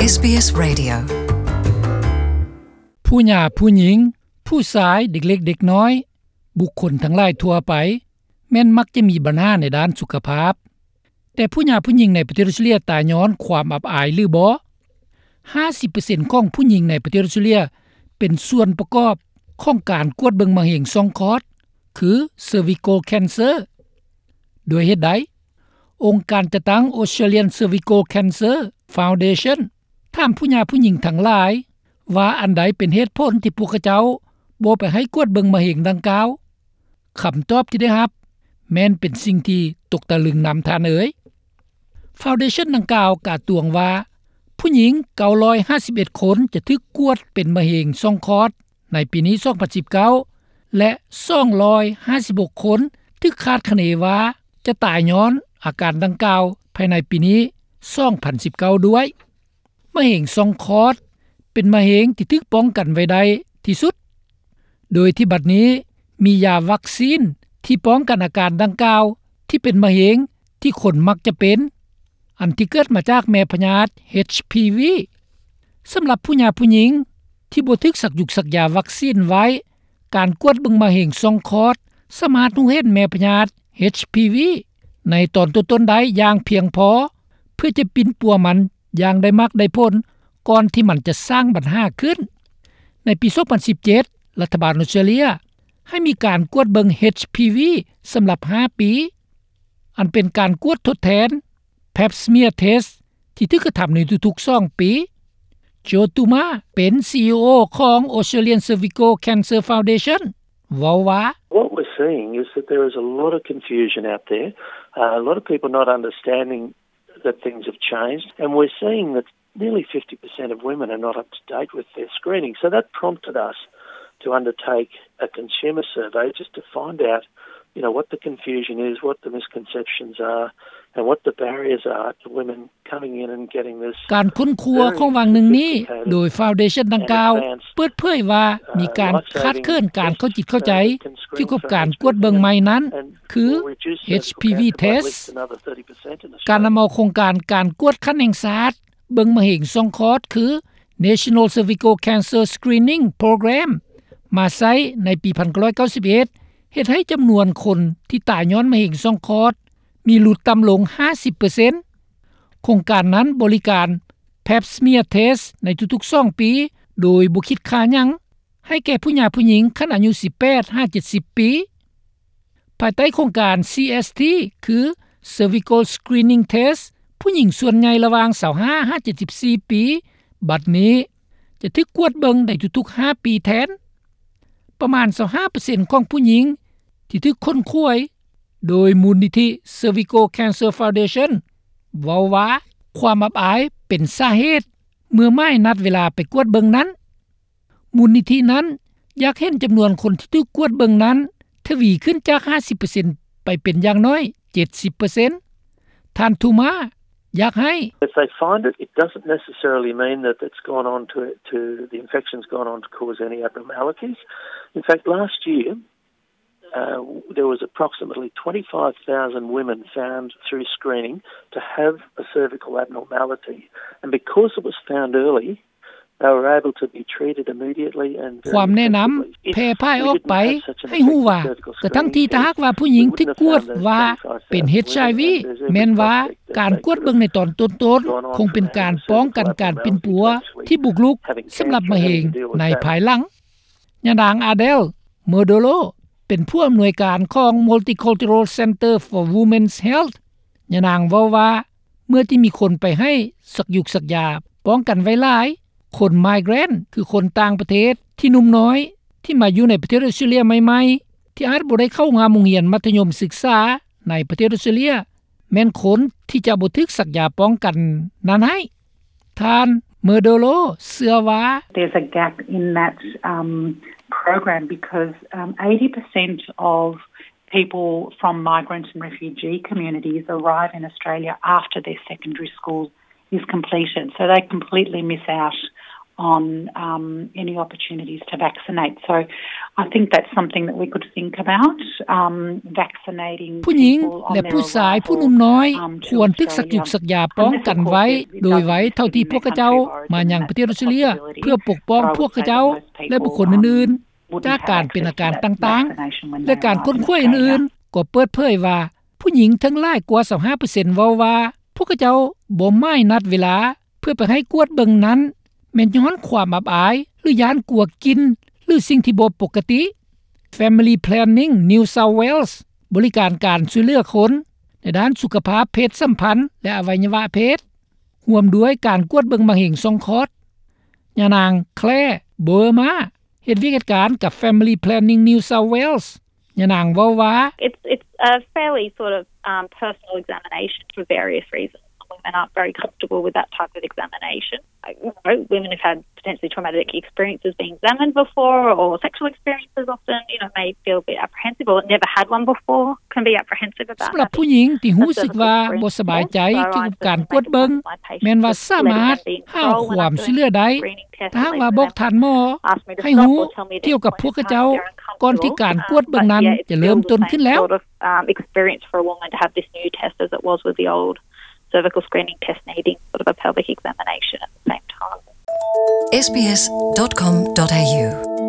ເອສບີເອສ Radio. ຜູ້ຫຍ່າຜູ້ຍິງ, ຜູ້ຊາຍ, ເດັກເລັກເດັກນ້ອຍ, ບຸກຄົນທັງຫຼາຍທົ່ວໄປ ແມ່ນມັກຈະມີບັນຫາໃນດ້ານສຸຂະພາບ. ແຕ່ຜູ້ຫຍ່າຜູ້ຍິງໃນປະເທດອອສເຕຣເລັຽຕາຍຍ້ອນຄວາມອັບອາຍຫຼືບໍ່? ຫ້າສິບເປີເຊັນຂອງຜູ້ຍິງໃນປະເທດອອສເຕຣເລັຽເປັນສ່ວນປະກອບຂອງການກວດເບິ່ງມະເຮັງຊ່ອງຄອດ ຄື cervical cancer. ດ້ວຍເຫດໃດ? ອົງການຈັດຕັ້ງ Australian Cervical Cancer Foundation ຖາມຜູ້ຫຍ່າຜູ້ຍິງທັງຫຼາຍວ່າ ອັນໃດເປັນເຫດຜົນທີ່ພວກເຂົາເຈົ້າບໍ່ໄປໃຫ້ກວດເບິ່ງມະເຮັງດັ່ງກ່າວ? ຄຳຕອບທີ່ໄດ້ຮັບແມ່ນເປັນສິ່ງທີ່ຕົກຕະລຶງນຳທ່ານເອີຍ. Foundation ດັ່ງກ່າວກ່າວຕວງວ່າ ຜູ້ຍິງເກົ້າຮ້ອຍຫ້າສິບເອັດຄົນຈະຖືກກວດເປັນມະເຮັງຊ່ອງຄອດໃນປີນີ້ ສອງພັນສິບເກົ້າ ແລະ ສອງຮ້ອຍຫ້າສິບຫົກຄົນຖືກຄາດຄະເນວ່າຈະຕາຍຍ້ອນອາການດັ່ງກ່າວພາຍໃນປີນີ້ ສອງພັນສິບເກົ້າ ດ້ວຍ. ມະເຮັງຊ່ອງຄອດເປັນມະເຮັງທີ່ຖືກປ້ອງກັນໄວ້ໄດ້ທີ່ສຸດ ໂດຍທີ່ບັດນີ້ມີຢາວັກຊີນທີ່ປ້ອງກັນອາການດັ່ງກ່າວທີ່ເປັນມະເຮັງທີ່ຄົນມັກຈະເປັນ ອັນທີ່ເກີດມາຈາກແມ່ພະຍາດ ເອດເອັດ ສຳລັບຜູ້ຫຍ່າຜູ້ຍິງທີ່ບໍ່ຖືກສັກຢຸກສັກຢາວັກຊີນໄວ້ ການກວດເບິ່ງມະເຮັງຊ່ອງຄອດສາມາດຮູ້ເຫັນແມ່ພະຍາດ ເອດເອັດ ໃນຕອນຕົ້ນໆໄດ້ຢ່າງພຽງພໍ ເພື່ອຈະປິ່ນປົວມັນຢ່າງໄດ້ມັກໄດ້ຜົນ ກ່ອນທີ່ມັນຈະສ້າງບັນຫາຂຶ້ນ. ໃນປີ ສອງພັນສິບເຈັດ ລັດຖະບານອອສເຕຣເລັຽໃຫ້ມີການກວດເບິ່ງ ເອດເອັດ ສຳລັບຫ້າປີ ອັນເປັນການກວດທົດແທນ Pap smear test ທີ່ຖືກກະທຳໃນທຸກໆສອງປີ. Joe Tuma ເປັນ CEO ຂອງ Australian Cervical Cancer Foundation ເວົ້າວ່າ What we're seeing is that there is a lot of confusion out there, a lot of people not understanding that things have changed, and we're seeing that nearly fifty percent of women are not up to date with their screening. So that prompted us to undertake a consumer survey just to find out, you know, what the confusion is, what the misconceptions are, and what the barriers are to women coming in and getting this ການຄົ້ນຄວ້າຂອງຫວ່າງໜຶ່ງນີ້ ໂດຍ Foundation ດັ່ງກ່າວເປີດເຜີຍວ່າມີການຂາດເຂີນການເຂົ້າຈິດເຂົ້າໃຈກ່ຽວກັບການກວດເບິ່ງໃໝ່ນັ້ນ ຄື ເອດເອັດ test. ການນຳເອົາໂຄງການການກວດຂັ້ນແຫ່ງຊາດເບິ່ງມະເຮັງຊ່ອງຄອດ ຄື National Cervical Cancer Screening Program ມາໃຊ້ໃນປີ ໜຶ່ງພັນເກົ້າຮ້ອຍເກົ້າສິບເອັດ ເຮັດໃຫ້ຈຳນວນຄົນທີ່ຕາຍຍ້ອນມະເຮັງຊ່ອງຄອດມີຫຼຸດຕ່ຳລົງ ຫ້າສິບເປີເຊັນ. ໂຄງການນັ້ນບໍລິການ Pap smear test ໃນທຸກໆສອງປີ ໂດຍບໍ່ຄິດຄ່າຫຍັງ ໃຫ້ແກ່ຜູ້ຫຍ່າຜູ້ຍິງຂັ້ນອາຍຸ ສິບແປດຫາເຈັດສິບປີ. ພາຍໃຕ້ໂຄງການ ຊີເອສທີ ຄື Cervical Screening Test ຜູ້ຍິງສ່ວນໃຫຍ່ລະຫວ່າງ ຊາວຫ້າຫາເຈັດສິບສີ່ປີ ບັດນີ້ຈະຖືກກວດເບິ່ງໃນທຸກໆຫ້າປີແທນ. ປະມານ ຊາວຫ້າເປີເຊັນຂອງຜູ້ຍິງທີ່ຖືກຄົ້ນຄວ້າໂດຍມູນນິທິ Cervical Cancer Foundation ເວົ້າວ່າ ຄວາມອັບອາຍເປັນສາເຫດເມື່ອໝາຍນັດເວລາໄປກວດເບິ່ງນັ້ນ. ມູນນິທິນັ້ນຢາກເຫັນຈຳນວນຄົນທີ່ຖືກກວດເບິ່ງນັ້ນທະວີຂຶ້ນຈາກ ຫ້າສິບເປີເຊັນ ໄປເປັນຢ່າງໜ້ອຍ ເຈັດສິບເປີເຊັນ. ທ່ານ Tuma ຢາກໃຫ້ If they find it, it doesn't necessarily mean that it's gone on to, to, the infection's gone on to cause any abnormalities. In fact, last year, uh, there was approximately twenty-five thousand women found through screening to have a cervical abnormality. And because it was found early, they were able to be treated immediately and very effectively. ຄວາມແນະນຳແຜ່ພາຍອອກໄປໃຫ້ຮູ້ວ່າ ກະທັ່ງທີ່ຖ້າຫາກວ່າຜູ້ຍິງຖືກກວດວ່າເປັນ ເອດເອັດ ແມ່ນວ່າການກວດເບິ່ງໃນຕອນຕົ້ນໆ ຄົງເປັນການປ້ອງກັນການປິ່ນປົວທີ່ບຸກລຸກສຳລັບມະເຮັງໃນພາຍຫຼັງ. ຍານາງ Adele Murdolo ເປັນຜູ້ອຳນວຍການຂອງ Multicultural Centre for Women's Health. ຍານາງເວົ້າວ່າ ເມື່ອທີ່ມີຄົນໄປໃຫ້ສັກຢຸກສັກຢາປ້ອງກັນໄວ້ຫຼາຍ, ຄົນ migrant ຄືຄົນຕ່າງປະເທດທີ່ໜຸ່ມນ້ອຍທີ່ມາຢູ່ໃນປະເທດອອສເຕຣເລັຽໃໝ່ໆ ທີ່ອາດບໍ່ໄດ້ເຂົ້າຮ່ວມໂຮງຮຽນມັດທະຍົມສຶກສາໃນປະເທດອອສເຕຣເລັຽ ແມ່ນຄົນທີ່ຈະບໍ່ຖືກສັກຢາປ້ອງກັນນັ້ນໃຫ້. ທ່ານ Murdolo ເຊື່ອວ່າ There's a gap in that, um, program because, um, eighty percent of people from migrant and refugee communities arrive in Australia after their secondary school is completed, so they completely miss out on um, any opportunities to vaccinate. So I think that's something that we could think about, um, vaccinating ຜູ້ຍິງ ແລະ ຜູ້ຊາຍຜູ້ໜຸ່ມນ້ອຍ ຄວນຖືກສັກຢຸກສັກຢາປ້ອງກັນໄວ້ໂດຍໄວເທົ່າທີ່ພວກເຂົາເຈົ້າມາຍັງປະເທດອອສເຕຣເລັຽ ເພື່ອປົກປ້ອງພວກເຂົາເຈົ້າ ແລະ ບຸກຄົນອື່ນໆ ຈາກການເປັນອາການຕ່າງໆ ແລະ ການຄົ້ນຄວ້າອື່ນໆ ກໍເປີດເຜີຍວ່າ ຜູ້ຍິງເຖິງຫຼາຍກວ່າ ຊາວຫ້າເປີເຊັນ ເວົ້າວ່າ ພວກເຂົາເຈົ້າບໍ່ໝາຍນັດເວລາ ເພື່ອໄປໃຫ້ກວດເບິ່ງນັ້ນ ແມ່ນຍ້ອນຄວາມອັບອາຍ ຫຼື ຢ້ານກົວກິ່ນ ຫຼື ສິ່ງທີ່ບໍ່ປົກກະຕິ. Family Planning New South Wales ບໍລິການການຊ່ວຍເຫຼືອຄົນໃນດ້ານສຸຂະພາບເພດສຳພັນ ແລະ ອະໄວຍະວະເພດ ຮ່ວມດ້ວຍການກວດເບິ່ງມະເຮັງຊ່ອງຄອດ. ຍານາງ Claire Boerma ເຮັດວຽກເຮັດການກັບ Family Planning New South Wales. ຍານາງເວົ້າວ່າ It's, it's a fairly sort of, um, personal examination for various reasons. Women aren't very comfortable with that type of examination. You know, women who've had potentially traumatic experiences being examined before or sexual experiences often, you know, may feel a bit apprehensive or never had one before, can be apprehensive about ສຳລັບຜູ້ຍິງທີ່ຮູ້ສຶກວ່າບໍ່ສະບາຍໃຈກ່ຽວກັບການກວດເບິ່ງ ແມ່ນວ່າສາມາດຫາຄວາມຊ່ວຍເຫຼືອໄດ້ ຖ້າຫາກວ່າບອກທ່ານໝໍໃຫ້ຮູ້ກ່ຽວກັບພວກເຂົາເຈົ້າ ກ່ອນທີ່ການກວດເບິ່ງນັ້ນຈະເລີ່ມຕົ້ນຂຶ້ນແລ້ວ. Um, experience for a woman to have this new test as it was with the old cervical screening test needing sort of a pelvic examination at the same time. S B S dot com dot A U.